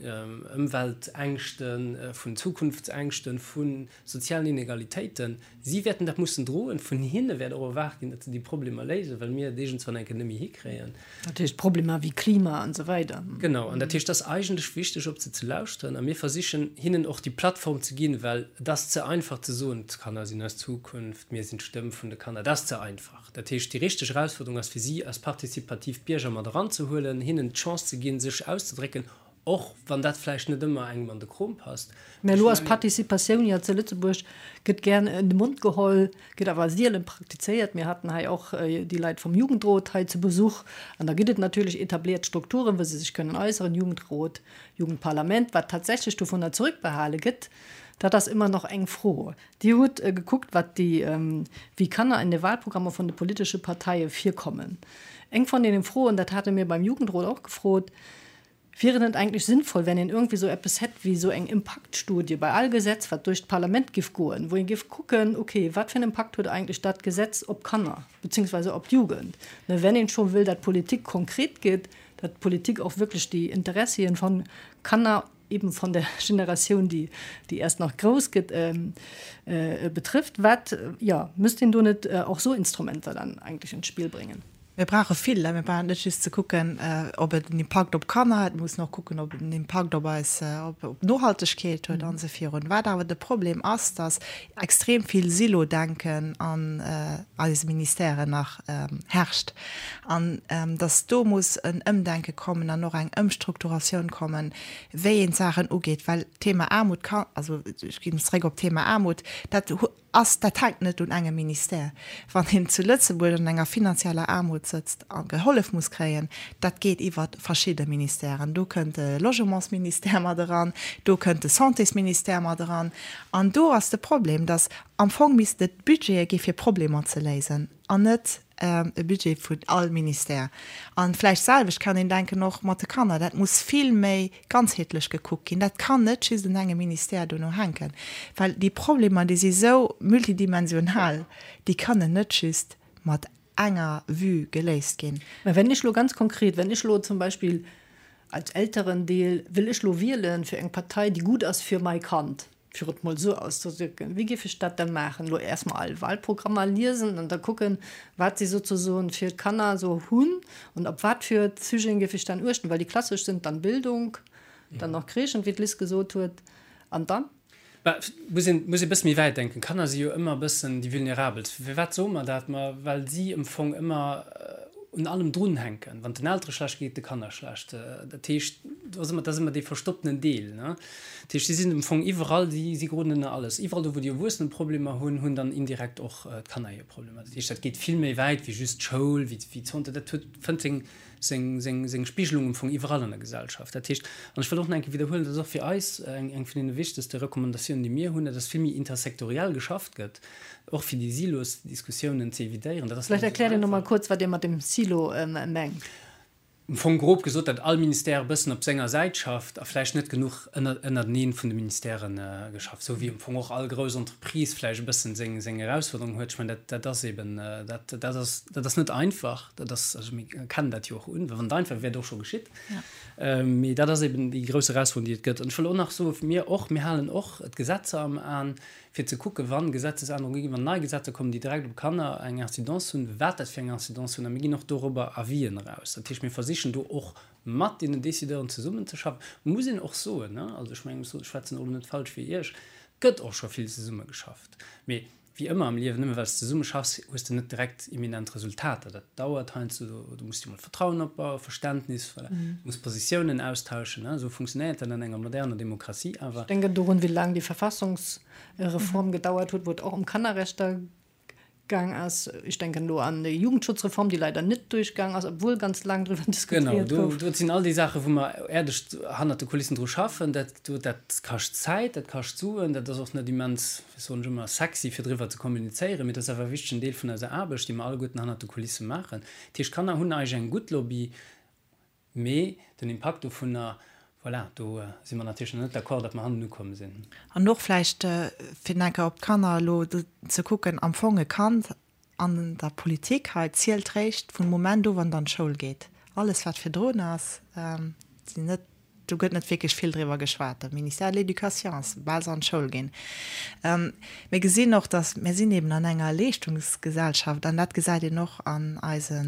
Ëmweltängschten, vun Zukunftsängschten, vu sozialen Inegalitéiten. Si wäerten dat mussen droen. Vun hinne wäert och erwaart ginn, datt se déi Problemer léisen, well mir et iergendswann eng Kéier net méi hikréien. Dat heescht Problemer wéi Klima an esou weider. Genau. An dat heescht, et ass eigentlech wichteg, op se ze lauschteren. A mir versichen, hinnen och déi Plattform ze ginn, well et ass ze einfach ze soen, d'Kanner sinn eis Zukunft, mir sinn d'Stëmm vun de Kanner. Dat ass ze einfach. Dat heescht, déi richteg Erausfuerderung ass fir si als partizipativ Bierger mat eranzehuelen, hinnen d'Chance ze ginn, sech auszedrécken, Och wann dat vläicht net ëmmer engem an de Krom passt. Mä elo ass Participatioun jo zu Lëtzebuerg, gëtt gär en de Mond geholl, gëtt awer sielen praktizéiert. Mir haten hei och déi Leit vum Jugendrot hei zu Besuch. An da gëtt et natierlech etabliert Strukturen, wou se sech kënnen äusseren, Jugendrot, Jugendparlament. Wat tatsächlech dovunner zurückbehale gëtt, dat ass ëmmer nach eng Fro. Dir hutt gekuckt, wat déi, wéi Kanner in de Wahlprogrammer vun de politesche Parteie virkommen. Eng von deenen Froen, dat hate mir beim Jugendrot och gefrot, Wier et net eigentlech sinnvoll, wenn een irgendwie sou eppes hätt wéi sou eng Impaktstudie bei all Gesetz, wat duerch d'Parlament giff goen, wou een giff kucken, okay, wat fir en Impakt huet eigentlech dat Gesetz op d'Kanner beziehungsweise op d'Jugend, ne, wenn een scho wëll, dat Politik konkret gétt, dat Politik och wierklech déi Interessien von Kanner, eben von der Generatioun, déi, déi erst nach grouss gëtt, betrifft. Wat, jo, müsst een do net och sou Instrumenter dann eigentlech ins Spiel bringen? Mir brauche vill. Mir brauchen net just ze kucken, ob et en Impakt op d'Kanner huet, mir mussen och kucken, ob et en Impakt op eis, op d'Nohaltegkeet huet an esou virun. Wat awer de Problem ass, datt extrem vill Silo-Denken an eise Ministèren nach herrscht an datt do muss en Ëmdenke kommen an och eng Ëmstrukturatioun kommen, wéi een d'Saachen ugeet, well d'Thema Aarmut kann, also ech ginn zréck op d'Thema Aarmut, dat ass, dat hänkt net un engem Ministère. Wann een zu Lëtzebuerg an enger finanzieller Aarmut sëtzt a gehollef muss kréien, dat geet iwwer verschidde Ministèren. Do kënnt de Logementsministère mat eran, do kënnt de Santésministère mat eran. An do ass de Problem, datt am Fong misst et Budgete gi fir Problemer ze léisen an net e Budget vun all Ministère. A vläicht d'selwecht kann een denken och mat de Kanner. Dat muss vill méi ganzheetlech gekuckt ginn. Dat kann net just un engem Ministère dono hänken, well déi Problemer, déi si sou multidimensional, déi kënnen net just mat enger Vue geléist ginn. Mä wenn ech elo ganz konkret, wenn ech elo zum Beispill als Elterendeel, wëll ech elo wielen fir eng Partei, déi gutt ass fir mai Kand, fir et mol esou auszedrücken, wéi géif ech dat da maachen? Elo erst mol all Wahlprogrammer liesen an da kucken, wat si sozesoen fir d'Kanner esou hunn an op wat fir Sujeten géif ech dann uechten, well déi klassesch sind dann Bildung, dann nach Crèchen, wéi d'Liz gesot huet, an dann? Bah, muss een, muss ee bësse méi wäit denken. Kanner si jo ëmmer e bëssen déi Vulnerabelst. Firwat soe mer dat? Ma well si am Fong ëmmer un allem drunhänken. Wann et den Eltere schlecht geet, de Kanner schlecht. Dat heescht, do ass ëmmer, dat ass ëmmer dee verstopptenen Deel, ne? Dat heescht, si sinn am Fong iwwerall, si, si geroden ënner alles. Iwwerall do, wou déi Erwuessene Problemer hunn, hunn dann indirekt och d'Kanner hir Problemer. Dat heescht, dat geet vill méi wäit wéi just d'Schoul, wéi, wéi d'Santé. Dat huet, fënnt seng, seng, seng, seng Spigelung am Fong iwwerall an der Gesellschaft. Dat heescht, an ech wëll och nach eng Kéier widderhuelen, dat ass och fir eis eng, eng vun deene wichtegste Recommandatiounen, déi mir hunn, dat ass vill méi intersektoriell geschafft gëtt, och fir déi Silosdiskussiounen ze evitéieren. Dat ass net Vläicht esou erkläert Dir nach mol einfach. kuerz, wat Dir mat dem Silo mengt. Am Fong grob gesot, datt all Ministère e bëssen op senger Säit schafft a vläicht net genuch ënnerteneen vun de Ministèrë geschafft, esou wéi am Fong och all grouss Entreprise vläicht e bëssen seng seng Erausforderungen huet. Ech mengen, dat dat ass eben, dat dat ass dat ass net einfach. Dat ass, also mir erkennen dat jo och un, well wann et einfach wär, wär et och scho geschitt. Mee dat ass eben déi grouss Erausforderung, déi et gëtt. An ech wëll och nach soen, mir och, mir halen och d'Gesetzer am An, fir ze kucken, wa Gesetzesännerunge ginn, wann nei Gesetzer kommen, déi direkt op Kanner eng Incidence hunn, wat dat fir eng Incidence hunn. A mir ginn och dorobber Avisen eraus. Dat heescht, mir versichen do och mat deenen Décideuren zesummenzeschaffen. Muss een och soen, also ech mengen, ech schwätzen och elo net falsch fir Iech, et gëtt och scho vill zesummegeschafft. Mee wéi ëmmer am Liewen, nëmme well s de zesumme schaffs, hues de net direkt imminent Resultater. Dat dauert heiansdo, do muss de mol Vertrauen opbauen, Verständnis, voilà. Du muss Positiounen austauschen, esou funktionéiert dat an enger moderner Demokratie awer. Ech denken dorun, wéi laang déi Verfassungsreform gedauert huet, wou et och ëm Kannerrechter gaang ass. Ech denken elo an déi Jugendschutzreform, déi leider net duerchgaang ass, obwuel ganz laang driwwer diskutéiert gouf. Genau, do sinn all déi Saachen, wou mer äerdeg hannert de Kulissen dru schaffen. Dat, dat kascht Zäit, dat kascht Suen, dat ass och net immens, wéi soen ech ëmmer, sexy, fir driwwer ze kommunizéieren, mee dat ass awer e wichtegen Deel vun eiser Aarbecht, déi mer alleguerten hannert de Kulisse maachen. Dat heescht, d'Kanner hunn eigentlech eng gutt Lobby. Mee den Impakt dovunner, voilà, do si mer natierlech nach net d'accord, datt mer hannen ukomm sinn. An och vläicht, fir nach eng Kéier op d'Kanner elo ze kucken, am Fong e Kand an der Politik hei zielt réischt vum Moment u wann et an d'Schoul geet. Alles wat virdrun ass, sinn net Do gëtt net wierklech vill driwwer geschwat. De Ministère de l'Éducation ass, soubal se an d'Schoul ginn. Mir gesinn och, datt mir sinn eben an enger Leeschtungsgesellschaft an dat gesäit een och an eise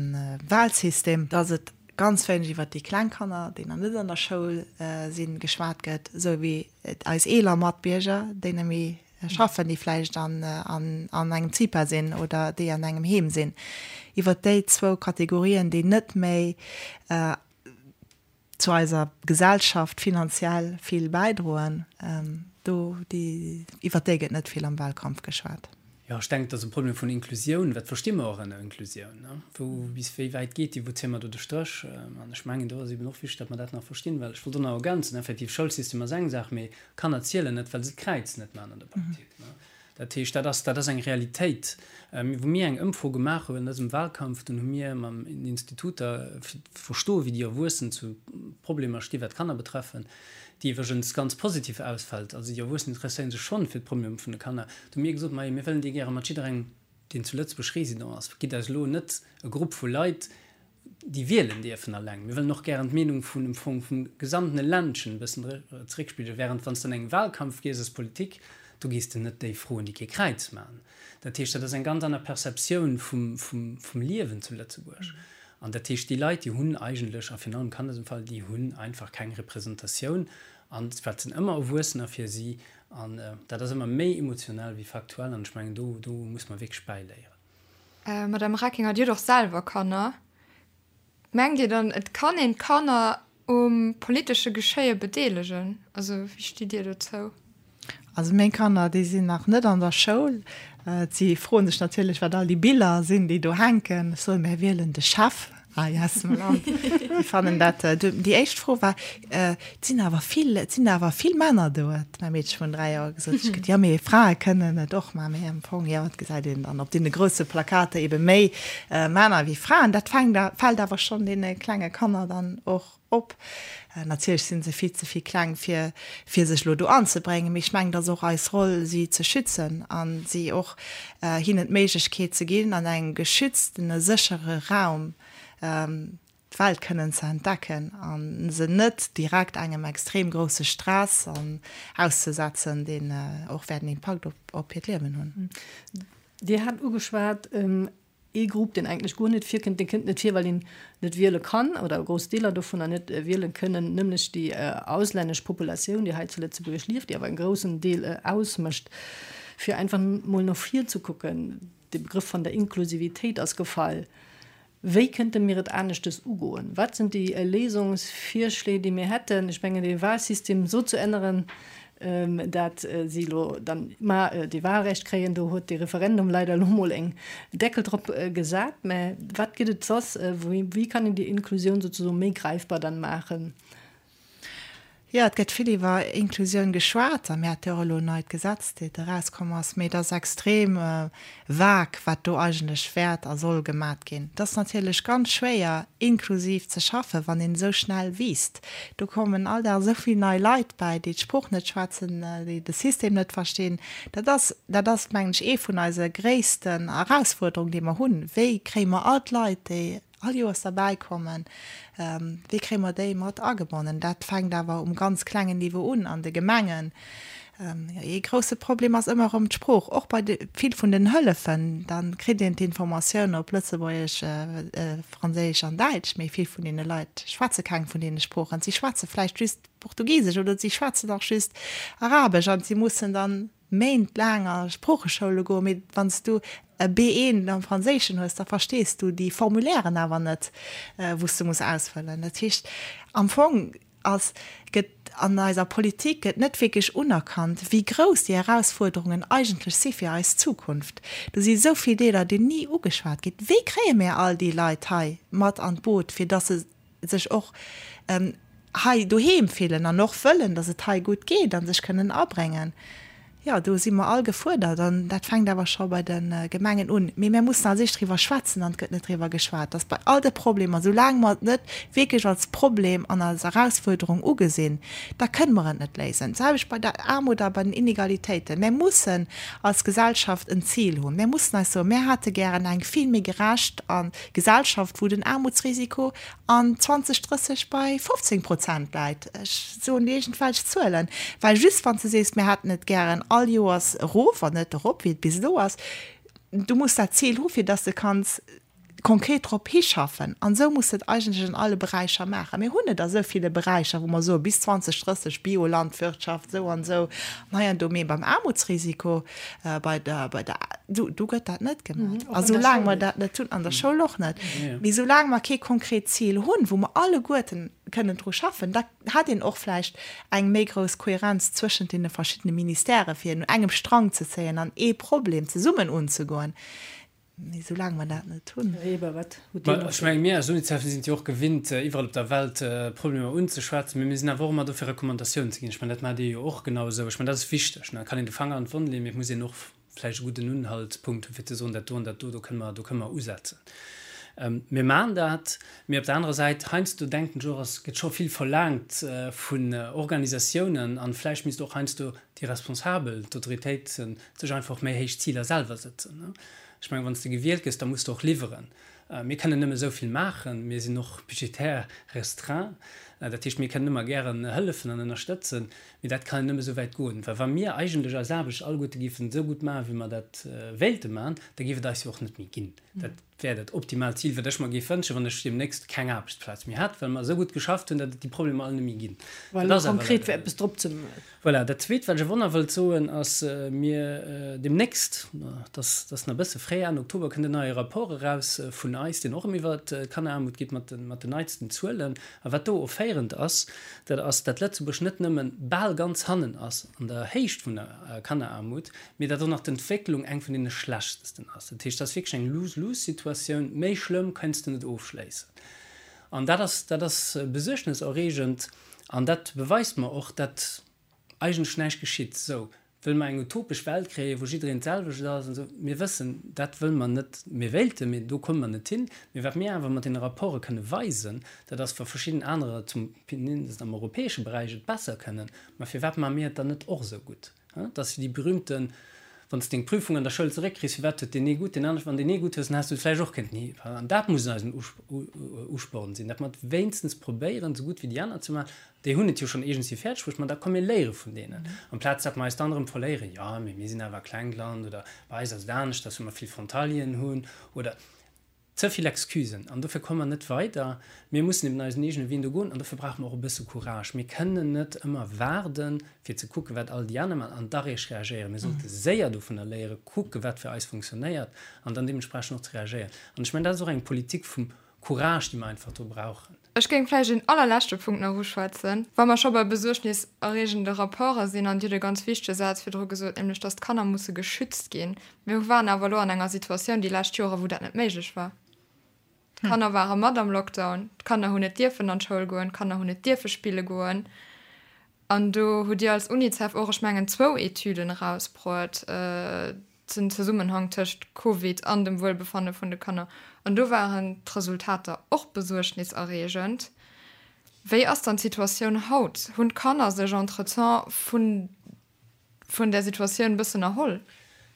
Wahlsystem, datt et ganz wéineg iwwert déi kleng Kanner, déi nach net an der Schoul sinn, geschwat gëtt, esou wéi eis eeler Matbierger, déi net méi schaffen, déi vläicht an engem CIPA sinn oder déi an engem Heem sinn. Iwwert déi zwou Kategorien, déi net méi zu eiser Gesellschaft finanziell vill bäidroen, do, déi, iwwert déi gëtt net vill am Wahlkampf geschwat. Jo, ech denken, et ass e Problem vun Inklusioun. Wat versti mer och ënner Inklusioun? Wou, bis wéi wäit geet déi? Wou zéie mer do de Stréch? An ech mengen, do ass eben och wichteg, datt mer dat nach verstinn, well ech wollt och nach ergänzen, effektiv, Schoulsystem ass eng Saach, mee Kanner zielen net, well se d'Kräiz net maachen an der Politik. Dat heescht, dat ass, dat ass eng Realitéit. Wou mir eng Ëmfro gemaach hunn an dësem Wahlkampf, dunn hu mir mam den Instituter, fir ze verstoen, wéi déi Erwuessen zu Problemer sti wat d'Kanner betreffen, déi iwwregens ganz positiv ausfält, also déi Erwuessen interesséiere sech schonn fir d'Problemer vun de Kanner, do hu mir gesot, majo, mir wëllen déi gäre mat jidderengem, deen zu Lëtzebuerg Résident ass, gitt eis elo net e Grupp vu Leit, déi wielen dierfen alleng. Mir wëllen och gären d'Meenung vun dem Fong vum gesamtene Ländchen e bëssen zeréckspigelen, während wann s de an engem Wahlkampf gees als Politik, do gees de net déi froen, déi kee Kräiz maachen. Dat heescht, dat ass eng ganz aner Perceptioun vum, vum, vum Liewen zu Lëtzebuerg. An dat heescht, déi Leit, déi hunn eigentlech, a virun allem Kanner am Fall, déi hunn einfach keng Representatioun. An wat sinn ëmmer Erwuessener fir si. An dat ass ëmmer méi emotionell wéi faktuell. An ech mengen, do, do muss mer wierklech bäiléieren. Madame Reckinger, Dir hutt och selwer Kanner. Mengt Dir dann, et kann een d'Kanner um politesche Geschéie bedeelegen? Also wéi stitt Dir dozou? Also meng Kanner, déi sinn nach net an der Schoul. Si froen sech natierlech, wat all déi Biller sinn, déi do hänken. Ech soen, Mär wielen de Chef hei aus dem Land. Si fannen dat, déi éischt Fro war, Et sinn awer vill, et sinn awer vill Männer do, huet mäi Meedche vun 3 Joer gesot. Ech gesot, jo, mee Frae kënnen et och maachen. Mee am Fong, jo, et gesäit een dann op deene grousse Plakater ebe méi Männer wéi Fraen. Dat fänkt, fält awer schonn deene klenge Kanner dann och op. Natierlech si se vill ze vill kleng, fir, fir sech elo do anzebréngen. Mee ech mengen, et ass och eis Roll, si ze schützen a si och, hinnen d'Méiglechkeet ze ginn, an engem geschütztene, séchere Raum d'Welt kënnen ze entdecken a se net direkt engem extrem grousse Stress auszesetzen, deen och wäert en Impakt op hiert Liewen hunn. Dir hat ugeschwat, ee Grupp, deen eigentlech guer net virkënnt, dee kënnt net vir, well een net wiele kann oder grouss Deeler dovunner net wiele kënnen, nämlech déi auslännesch Populatioun, déi hei zu Lëtzebuerg lieft, déi awer en groussen Deel ausmécht. Fir einfach mol no vir ze kucken, de Begrëff vun der Inklusivitéit ass gefall. Wéi kënnte mir et aneschtes ugoen? Wat sinn déi Léisungsvirschléi, déi mir hätten? Ech mengen, dee Wahlsystem esou ze änneren, dat si elo dann mar dee Wahlrecht kréien, do huet dee Referendum leider elo mol en Deckel drop gesat. Mä wat gëtt et soss? Wéi kann een déi Inklusioun souzesoen méi greifbar dann maachen? Jo, et gëtt vill iwwer Inklusioun geschwat a mir hate jo och elo en neit Gesetz, dat erauskomm ass, mee et ass extrem vag, wat do eigentlech wäert a soll gemat ginn. Et ass natierlech ganz schwéier, inklusiv ze schaffen, wann een esou schnell wiisst. Do kommen all Dag esou vill nei Leit bäi, déi d'Sprooch net schwätzen, déi de System net verstinn. Dat ass, dat ass, mengen ech, ee vun eise gréissten Erausfuerderungen, déi mer hunn. Wéi kréie mer all d'Leit, déi all Joers derbäi kommen, wéi kréie mer déi mat agebonnen? Dat fänkt awer um ganz klengen Niveau un, an de Gemengen. Ee grousse Problem ass ëmmer erëm d'Sprooch, och bei de vill vun den Hëllefen. Da kritt een d'Informatioun op Lëtzebuergesch, Franséisch an Däitsch, mee vill vun deene Leit schwätze keng vun deene Sproochen. Si schwätze vläicht just Portugisesch oder si schwätzen och just Arabesch an si mussen dann Méint laang a Sproocheschoule goen, mee wann s du e B1 am Franséischen hues, da verstees du déi Formulairen awer net, wou s du muss ausfëllen. Dat heescht, am Fong ass, gëtt an eiser Politik gëtt net wierklech unerkannt, wéi grouss déi Erausfuerderungen eigentlech si fir eis Zukunft. Do si esou vill Deeler, déi ni ugeschwat ginn. Wéi kréie mir all déi Leit hei mat an d'Boot, fir dass se sech och hei doheem fillen an och wëllen, dass et hei gutt geet a sech kënnen abréngen. Jo, do si mer all gefuerdert an dat fänkt awer scho bei de Gemengen un. Mee mir mussen als éischt driwwer schwätzen an et gëtt net driwwer geschwat, dass bei all de Problemer, soulaang mer et net wierklech als Problem an als Erausfuerderung ugesinn, da kënne mer et net léisen. D'selwecht bei der Aarmut a bei den Inegalitéiten. Mir mussen als Gesellschaft en Zil hunn. Mir mussen eis soen, mir hätte gären eng vill méi gerecht a Gesellschaft, wou den Aarmutsrisiko an 2030 bei 15 Prozent läit, ech soen iergendwelch Zuelen, well just wann s de sees, mir hätten et gären all Joers erof an net erop, wéi et bis elo ass, du muss dat Zil hu fir dass de kanns konkret drop hischaffen. An esou muss de et eigentlech an alle Beräicher maachen. Mir hunn et a sou ville Beräicher, wou mer soe bis 2030 Biolandwirtschaft esou an esou an hei an do, mee beim Aarmutsrisiko, Bei der, bei der, do, do gëtt dat net gemaach. A soulaang mer dat net hunn, an der Schoul och net, mee soulaang mer kee konkret Zil hunn, wou mer alleguerten kënnen dru schaffen, da hätt een och vläicht eng méi grouss Kohärenz zwëschent deene verschiddene Ministèrë fir un engem Strang ze zéien an ee Problem zesummen unzegoen. Mee soulaang mer dat net hunn. Här Weber, wat hutt Dir nach Ech menge mir als UNICEF sinn et jo och gewinnt, iwwerall op der Welt Problemer unzeschwätzen, mee mir sinn awer och ëmmer do fir Recommandatiounen ze ginn. Ech mengen, dat maacht Dir jo och genau esou. Ech mengen, dat ass wichteg. Et kann een de Fanger an d'Wonn leeën, mee et muss een och vläicht e gudden Unhaltspunkt hunn, fir ze soen, dat do an dat do, do kënne mer, do kënne mer usetzen. Mir maachen dat, mee op der anerer Säit, heiansdo denken ech och, es gëtt scho vill verlaangt vun Organisatiounen an vläicht misst och heiansdo déi Responsabel, d'Autoritéiten, sech einfach och méi héich Ziler selwer sëtzen. Ech mengen, wann s de gewielt gëss, da muss de och liwweren. Mir kënnen nëmme esou vill maachen, mir sinn och budgetär restreint. Dat heescht, mir kënnen ëmmer gären hëllefen an ënnerstëtzen, mee dat kann nëmme esou wäit goen. Well wa mir eigentlech eis Aarbecht alleguerte géifen esou gutt maachen, wéi mer dat wéilte maachen, da géif et eis jo och net méi ginn. Dat wär dat optimaalt Zil, wat ech mer géif wënschen, wann ech deemnächst keng Aarbechtsplaz méi hätt, well mer esou gutt geschafft hunn, datt et déi Problemer all net méi ginn. Dat ass awer leider net esou. Voilà, dat Zweet, wat ech awer och nach wëllt soen, ass, mir deemnächst, dat ass nach e bësse fréi, Enn Oktober kënnt en neie Rapport eraus vun eis, deen och erëm iwwert d'Kanneraarmut geet, mat den, mat den neitsten Zuelen. A wat do offéierend ass, dat ass, dat Lëtzebuerg net nëmmen bal ganz hannen ass an der Héicht vun der Kanneraarmut, mee dat och nach d'Entwécklung eng vun deene schlechtesten ass. Dat heescht, dat ass wierklech eng Lose-lose-Situatioun, méi schlëmm kënns de net ofschléissen. An dat ass, dat ass besuergneserreegend. An dat beweist mer och, datt eigentlech näischt geschitt. Sou, wëlle mer eng utopesch Welt kréien, wou jiddereen d'selwecht ass an esou? Mir wëssen, dat wëlle mer net. Mir wéilten, mee do komme mer net hin. Mee wat mir awer mat deene Rapporte kënne weisen, dat ass, wa verschidden anerer, zum mindest am europäesche Beräich, et besser kënnen, ma firwat maache mir et dann net och esou gutt? Dat ass jo déi berühmten, Wann s de deng Prüfung an der Schoul zeréckkriss, firwat huet deen ee gutt, deen anere, wann deen ee gutt hues, dann häss du et vläicht och kënnten hi. An dat muss eisen Usporn sinn, datt mer et wéinstens probéieren, esou gutt wéi déi aner ze maachen. Déi hunn et jo schonn iergendwéi fäerdeg bruecht, ma da komm mir léiere vun deenen, amplaz datt mer eis dann erëm verléieren, jo, mee mir sinn awer e klengt Land oder bei eis ass et aneschters, well mer vill Frontalieren hunn oder. Ze vill Excusen an dofir komme mer net weider. Mir mussen eben eisen eegene Wee do goen an dofir brauche mer och e bësse Courage. Mir kënnen net ëmmer waarden, fir ze kucken, wat all déi aner maachen an da réischt reagéieren. Mir sollte séier dovunner léieren, kucken, wat fir eis funktionéiert an dann deementsprechend och ze reagéieren. An ech mengen, dat ass och eng Politik vum Courage, déi mer einfach do brauchen. Ech géing vläicht een allerleschte Punkt nach uschwätzen, wa mer scho bei besuergniserreegende Rapporte sinn, an Dir hutt e ganz wichtege Saz virdru gesot, nämlech dass d'Kanner musse geschützt ginn. Mir waren awer elo an enger Situatioun déi lescht Jore wou dat net méiglech war. D'Kanner ware mat am Lockdown, d'Kanner hunn net dierfen an d'Schoul goen, d'Kanner hunn net dierfe spille goen. An do hutt Dir als Unicef och, ech mengen, zwou Etüden erausbruet, den Zesummenhang tëscht Covid an dem Wuelbefanne vun de Kanner. An do waren d'Resultater och besuergniserreegend. Wéi ass dann d'Situatioun haut? Hunn d'Kanner sech entretemps vun vun där Situatioun e bëssen erholl?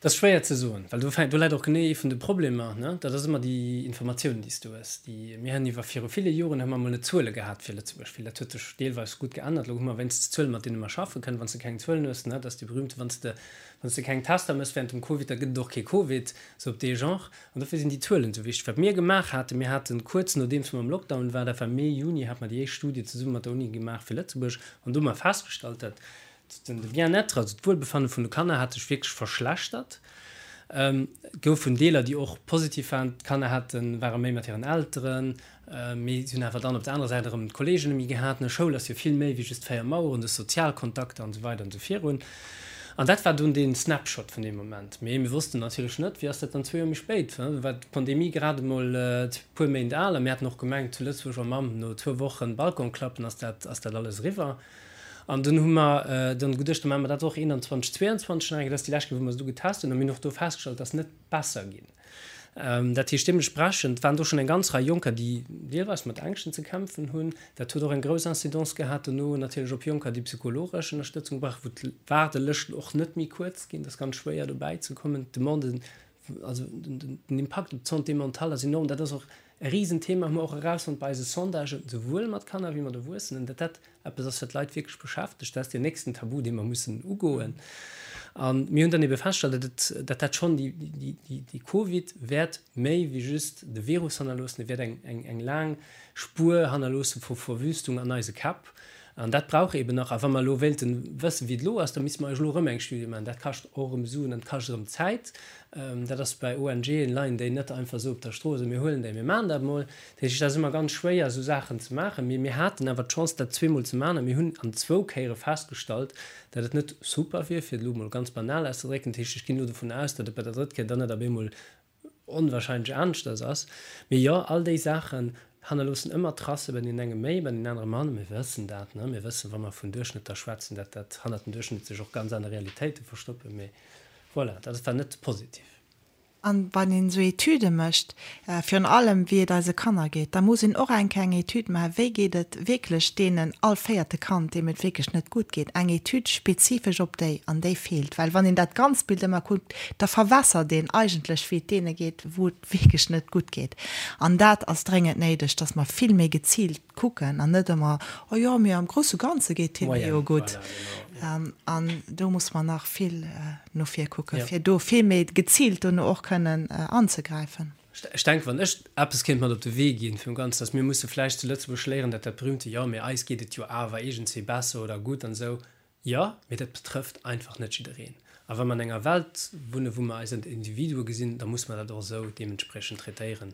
Dat ass schwéier ze soen, well do fänkt, do läit och genee ee vun de Problemer, ne? Dat ass ëmmer déi Informatiounen, déi s du hues. Déi, mir hunn iwwer viru ville Joren hu mer emol net Zuele gehat fir Lëtzebuerg, well dat huet sech deelweis gutt geännert. Elo hu mer wéinstens Zuelen, mat deene mer schaffe kënnen. Wann s de keng Zuelen hues, ne, dat ass déi berühmte, wann s de, wann s de keng Tester méchs während dem Covid, da gëtt et och kee Covid, sou op dee Genre. An dofir sinn déi Zuelen esou wichteg. Wat mir gemaach haten, mir haten kuerz nodeems mer am Lockdown waren, dat war Mee, Juni, hate mer déi éischt Studie zesumme mat der Uni gemaach fir Lëtzebuerg an do hu mer festgestallt, dat De Bien-être, also d'Wuelbefanne vun de Kanner hat sech wierklech verschlechtert. Et goufen Deeler, déi och positiv waren. D'Kanner haten, ware méi mat hiren Elteren, mee si hunn awer dann op der anerer Säit erëm d'Kolleegen net méi gehat. Schoul ass jo vill méi wéi just 4 Maueren, de Sozialkontakter an esou weider an esou virun. An dat war dunn dee Snapshot vun deem Moment. Mee mir wossten natierlech net, wéi ass dat dann zwee Joer méi spéit, do war d'Pandemie grad emol e puer Méint al a mir haten och gemengt zu Lëtzebuerg, oh Mamm, no zwou Wochen Balcon klappen ass dat, ass dat alles eriwwer. An dunn hu mer dann geduecht, da maache mer dat och 21, 22 nach eng Kéier. Dat ass déi lescht Kéier, wou mer se du getest hunn. A mir hunn och do festgestallt, et ass net besser ginn. Dat heescht, deementsprechend waren do schonn eng ganz Rei Jonker, déi deelweis mat Ängschten ze kämpfen hunn. Dat huet och eng grouss Incidence gehat dono natierlech op Jonker, déi psychologesch Ënnerstëtzung brauchen, wou d'Waardelëschten och net méi kuerz ginn. Et ass ganz schwéier dobäi ze kommen. D'Demande Also den Impakt op d'Santé mentale ass enorm. Dat ass och e Risenthema, hu mer och erausfonnt bei eise Sondagen, souwuel mat Kanner wéi mat Erwuessenen, datt dat eppes ass, wat d'Leit wierklech beschäftegt. Dat ass deen nächsten Tabu, dee mer mussen ugoen. A mir hunn dann ebe festgestallt, datt et, datt dat schonn déi, déi, déi Covid wäert méi wéi just de Virus hannerloossen, e wäert eng, eng, eng laang Spuer hannerloosse vu Verwüstung an eise Käpp. An dat brauch eeben nach. A wa mer elo wéilten wëssen, wéi et elo ass, da misste mer eis elo erëm eng Studie maachen. Dat kascht och erëm Suen an et kascht erëm Zäit. Dat ass bei ONGen, leien déi net einfach esou op der Strooss a mir huelen déi, mir maachen dat emol. Dat heescht, et ass ëmmer ganz schwéier, esou Saachen ze maachen. Mee mir haten awer d'Chance, dat zweemol ze maachen a mir hunn an zwou Kéiere festgestallt, datt et net super wier, fir et elo emol ganz banal auszedrécken. Dat heescht, ech ginn elo dovun aus, datt et bei der drëtt Kéier dann net op eemol onwahrscheinlech aneschters ass. Mee jo, all déi Saachen hannerloossen ëmmer Tracë, bei deenen enge méi, bei deenen anere manner. Mir wëssen dat, ne? Mir wëssen, wa mer vun Duerchschnëtter schwätzen, dat dat hannert den Duerchschnëtt sech och ganz aner Realitéite verstoppen. Mee voilà, dat war net positiv. An wann een esou Etüde mécht, virun allem wéi et eise Kanner geet, da muss een och eng Kéier eng Etüd maachen, wéi geet et wierklech deenen all véierte Kand, deem et wierklech net gutt geet, eng Etüd spezifesch op déi. An déi feelt, well wann een dat ganzt Bild ëmmer kuckt, da verwässert een eigentlech, wéi et deene geet, wou et wierklech net gutt geet. An dat ass dréngend néideg, dass mer vill méi geziilt kucken an net ëmmer, oh jo, mee am grousse Ganze geet hinne jo gutt. An do muss mer nach vill no vir kucken, fir do vill méi geziilt dono och kënnen anzegräifen. Ech denken, wann ech eppes kéint mat op de Wee ginn vum Ganzen, dass mir musse vläicht zu Lëtzebuerg léieren, dat dat berühmte Jo, mee eis geet et jo awer iergendswéi besser oder gutt an esou, Jo, mee dat betrëfft einfach net jiddereen. A wa mer an enger Welt wunnen, wou mer eis als Individue gesinn, da muss mer dat och esou deementspriechend traitéieren.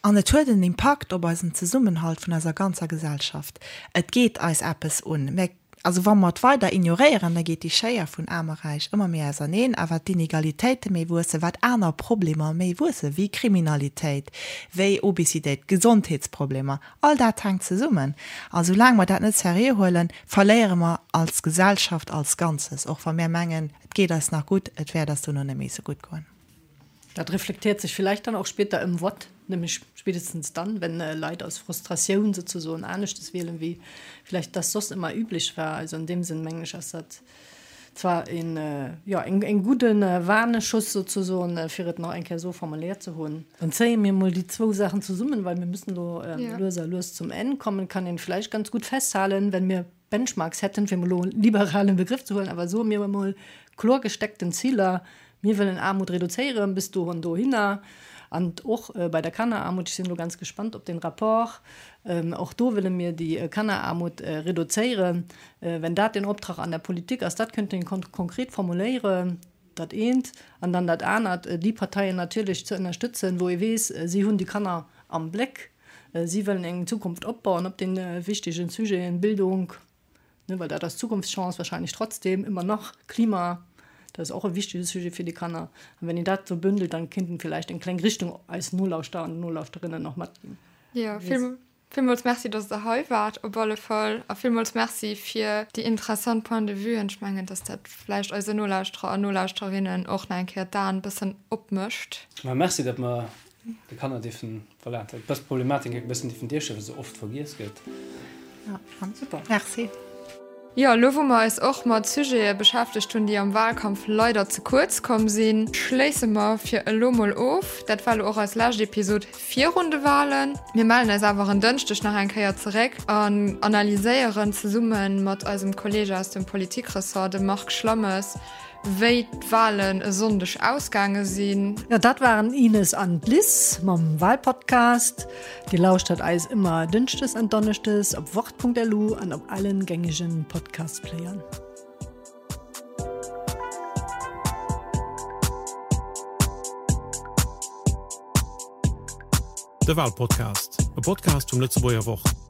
An et huet en Impakt op eisen Zesummenhalt vun eiser ganzer Gesellschaft. Et geet eis eppes un. Mä also wa mer et weider ignoréieren, da geet déi Schéier vun Aarm a Räich ëmmer méi auserneen. A wat d'Inegalitéite méi wuessen, wat aner Problemer méi wuessen, wéi Kriminalitéit, wéi Obesitéit, Gesondheetsproblemer, all dat hänkt zesummen. A soulaang mer dat net seriö huelen, verléiere mer als Gesellschaft als Ganzes, och wa mir mengen, et geet eis nach gutt, et wäert eis dono net méi esou gutt goen. Dat reflektiert sich vielleicht dann auch später im Wort, nämlich spätestens dann, wenn äh, Leit aus Frustratioun sozusagen aneschtes wielen, wéi vielleicht das soss ëmmer üblich war. Also an deem Sënn mengen ech ass dat zwar een, äh, jo, eng, eng gudden äh, Warneschuss sozusagen, äh, fir et nach eng Kéier esou formuléiert ze hunn. Dann zéie mir mol déi zwou Saachen zesummen, well mir müssen elo ähm, ja. lues a lues zum Enn kommen. Kann een vielleicht ganz gut festhalen, wenn mir Benchmarks hätten, fir mol elo en liberalen Begrëff ze huelen, awer soe mir emol kloer gesteckten Ziler, mir wëllen Aarmut reduzéieren bis do an dohinner an och bei der Kanneraarmut, ech sinn elo ganz gespannt op den Rapport, och do wëlle mir déi Kanneraarmut reduzéieren. Wenn dat den Optrag an der Politik ass, dat könnte een konkret formuléieren, dat eent, an dann dat anert, déi Parteien natierlech ze ënnerstëtzen, wou ee weess, si hunn déi Kanner am Bléck. Si wëllen eng Zukunft opbauen op de wichtegen Sujeten Bildung, ne, well dat ass d'Zukunftschance wahrscheinlech trotzdem ëmmer nach, Klima, dat ass och e wichtege Sujet fir déi Kanner. An wenn een dat esou bündelt, dann kéint een villäicht eng kleng Richtung eis Nolauschterer an Nolauschterinnen och matginn. Jo, villmools Merci, dass Der hei waart op alle Fall a villmools Merci fir déi interessant Point de vuen. Ech mengen, dass dat vläicht eise Nolauschterer an Nolauschterinnen och nach eng Kéier d'Aen e bëssen opmécht. Ma merci, datt mer De Kanner dierfen, voilà, dës Problematik e bëssen dierfen duerstellen, well se oft vergiess gëtt. Ja, super. Merci. Jo, elo wou mer eis och mat Sujete beschäftegt hunn, déi am Wahlkampf leider ze kuerz komm sinn, schléisse mer fir elo mol of. Dat war elo och eis lescht Episod virun de Wahlen. Mir mellen eis awer en Dënschdeg nach eng Kéier zeréck an analyséieren zesumme mat eisem Kolleeg aus dem Politikressort, dem Marc Schlammes, Wéi d'Walen e Sonndeg ausgaange sinn. Jo, dat waren Ines an d'Liz mam Walpodcast. Dir lauschtert eis ëmmer Dënschdes an Donneschdes op wort.lu an op allen gängegen Podcast-Playern. De Walpodcast, e Podcast vum Lëtzebuerger Wort.